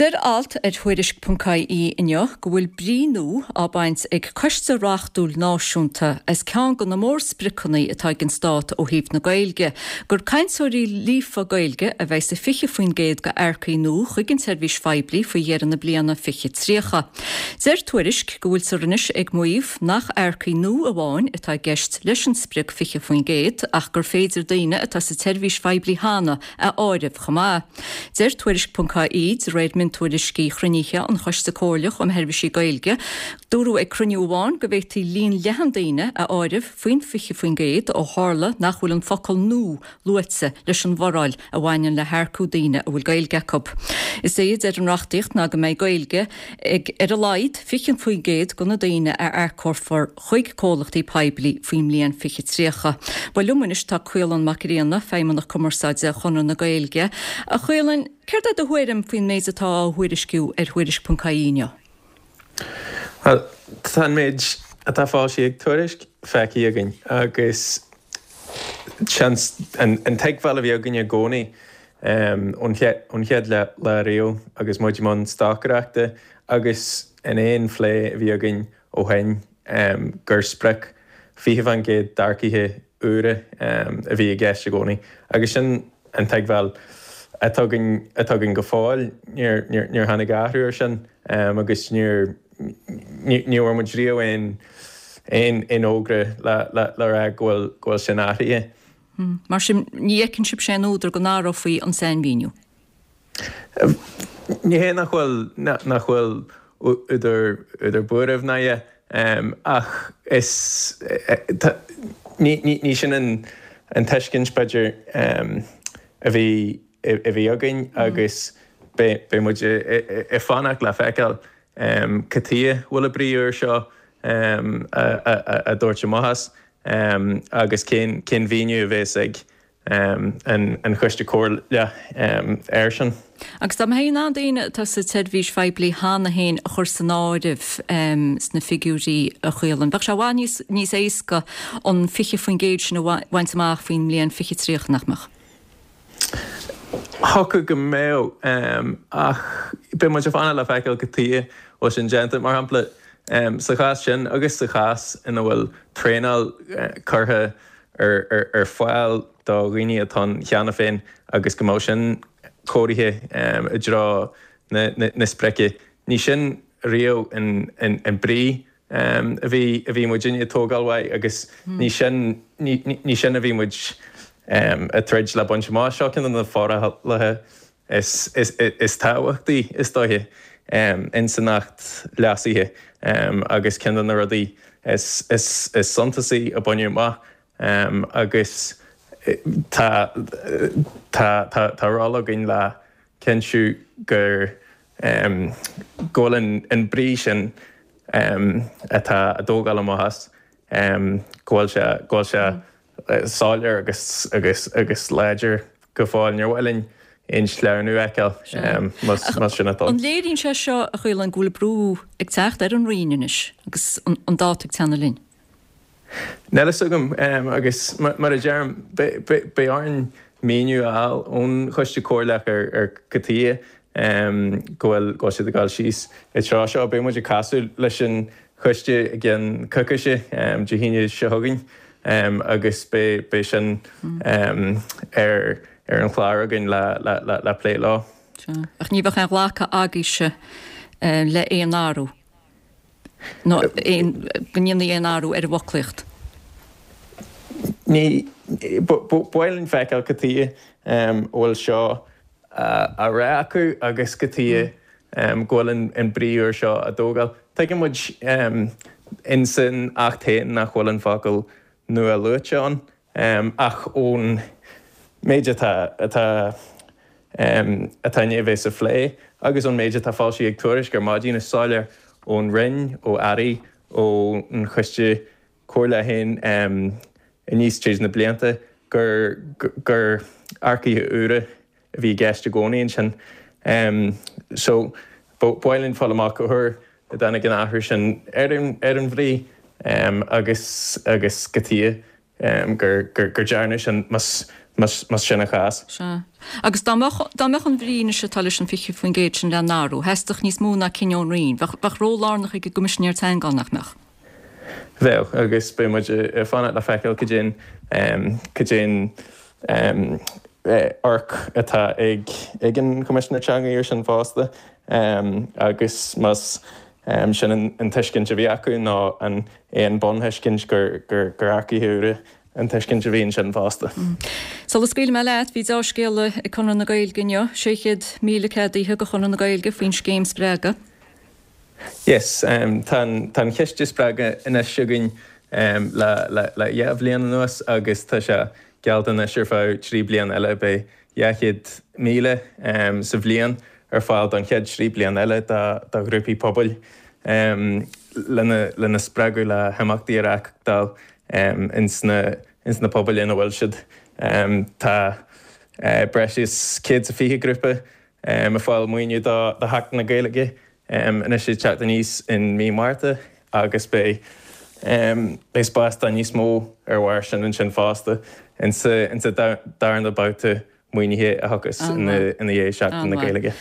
Deir alt ar Thuairisc.ie inniu go bhfuil brí nua á baint ag Coiste Reachtúil Náisiúnta as ceann de na mórspriocanna atá ag an Stát ó thaobh na Gaeilge, gur cainteoirí líofa Gaeilge a bheidh sa 20% d'earcaigh nua chuig an tseirbhís phoiblí faoi dheireadh na bliana 2030. Deir Tuairisc go bhfuiltear anois ag maíomh nach earcaigh nua amháin atá i gceist leis an sprioc 20% ach gur féidir daoine atá sa tseirbhís phoiblí cheana a áireamh chomh maith. Deir Tuairisc.ie, de réir miontuairiscí chruinnithe an Choiste Comhairleach um Sheirbhísí Gaeilge, dúradh ag cruinniú amháin go bhféadfaí líon leathan daoine a áireamh faoin 20% ó tharla nach bhfuil an focal 'nua' luaite leis an bhforáil a bhaineann le hearcú daoine a bhfuil Gaeilge acu. Is é a deir an reachtaíocht ná go mbeidh Gaeilge ag ar a laghad 20% de na daoine a earcófar chuig comhlachtaí poiblí faoin mbliain 2030. Bhuel, liom anois tá Caolán Mac Grianna, Feidhmeannach Cumarsáide Chonradh na Gaeilge. A Chaoláin, céard é do thuairim faoin méid atá á thuairisciú ar Thuairisc.ie inniu? Bhuel, tá an méid atá foilsithe ag Tuairisc feicthe againn agus seans an tuigbheáil a bhí againn i gcónaí ón chéad lá riamh agus muid i mbun stocaireachta agus in aon phlé a bhí againn ó shin gur sprioc 20% d'earcaithe úra a bhí i gceist i gcónaí agus sin an tuigbheáil atá againn atá againn go fóill. Níor níor tháinig athrú ar sin agus níor ní bhfuair muid riamh aon aon aon fhógra le le le rá go bhfuil go bhfuil sin athraithe. Mar sin ní fheiceann sibhse aon údar go n-athrófaí an sainmhíniú? Ní hé nach bhfuil nach bhfuil údar údar buairimh ná a dhath ach is ní ní sin an an tuiscint b'fhéidir a bhí a bhí againn agus beidh beidh muid ag fanacht le feiceáil cad chuige a bhfuil an brí úr seo á dtabhairt amach as agus cén cén mhíniú a bhéas ag an Choiste Comhairleach air sin. Agus dá mbeifí in ann daoine atá sa tseirbhís phoiblí cheana féin a chur san áireamh sna figiúirí, a Chaoláin, bheadh sé i bhfad níos éasca an 20% sin a bhaint amach faoin mbliain 2030, nach mbeadh? Thiocfadh go mbeadh, ach beidh muid ag fanacht le feiceáil cad chuige a bhfuil sin déanta. Mar shampla, sa chás sin agus sa chás ina bhfuil traenáil curtha ar fáil do dhaoine atá ann cheana féin agus go mbeadh sin cóirithe i dtreo na sprice. Ní sin riamh an brí a bhí a bhí muidinne ag tógáil uaidh agus ní sin ní sin a bhí muid ag troid le baint amach. Seo ceann de na forálacha is tábhachtaí is dóiche ins an Acht leasaithe agus ceann de na rudaí is suntasaí a baineadh amach agus tá tá ról againn le cinntiú gur go bhfuil an brí sin atá á dtógáil amach as go bhfuil sé go bhfuil sé soiléir agus agus agus láidir go fóill. Níor mhaith linn aon sleamhnú a fheiceáil más sin atá ann. An léiríonn sé seo, a Chaoláin, go bhfuil brú ag teacht ar an Roinn anois agus an dáta ag teannadh linn? Níl a fhios agam agus mar a deirim, beidh orainn míniú a fháil ón Choiste Comhairleach ar cad chuige go bhfuil siad ag dul síos i dtreo seo. Beidh muid ag casadh leis an Choiste i gceann coicíse, Dé hAoine seo chugainn, agus beidh sin ar an chlár againn le plé leo. Sea. Ach ní bheadh aon ghlacadh agaibhse le aon athrú, nó aon, go ndéanfaí aon athrú ar an bhfoclaíocht? Ní, ba mhaith linn feiceáil cad chuige a bhfuil seo á rá acu agus cad chuige go bhfuil an brí úr seo á dtógáil. Tuigeann muid ins an Acht féin nach bhfuil an focal nua luaite ann, ach ón méid atá atá atá i ndiaidh a bheith sa phlé agus ón méid atá foilsithe ag Tuairisc ar maidin, is soiléir ón Roinn, ó Airí, ón Choiste Comhairleach féin aníos tríd na blianta gur gur earcaithe úra a bhí i gceist i gcónaí ansin. So, ba mhaith linn fáil amach cá huair a dtáinig an athrú sin ar an ar an bhrí agus agus cad chuige gur gur gur dearnadh sin más Más sin an chás. Sea. Agus dá mbeadh, dá mbeadh an bhrí anois atá leis an 20% sin le n-athrú, theastódh níos mó ná cinneadh ón Roinn. Bheadh, bheadh ról lárnach ag an gCoimisinéir Teanga ann, nach mbeadh? Bheadh, agus beidh muid ag fanacht le feiceáil cad é an, cad é an amharc atá ag, ag an Choimisinéir Teanga air sin fosta. Agus más sin an tuiscint a bhí acu nó an é an bunthuiscint gur, gur, gur earcaithe úra an tuiscint a bhí ansin fosta. Sula scaoilfidh mé leat, bhí deá-scéala ag Conradh na Gaeilge inniu, 600,000 ceadaithe do Chonradh na Gaeilge faoin scéim Spreagadh. Yes, tá an chiste Spreagadh anois againn le le dhá bhliain anuas agus tá sé geallta anois ar feadh trí bliana eile. Beidh 200,000 sa bhliain ar fáil don chéad trí bliana eile do ghrúpaí pobail lena spreagadh le himeachtaí a reáchtáil ins na pobail ina bhfuil siad. Tá breis is 120 grúpa ag fáil maoiniú do Sheachtain na Gaeilge anois ag teacht aníos in mí Márta agus beidh beidh spás do níos mó ar bharr sin ansin fosta insa darna babhta maoinithe a thiocfas ina dhiaidh Seachtain na Gaeilge.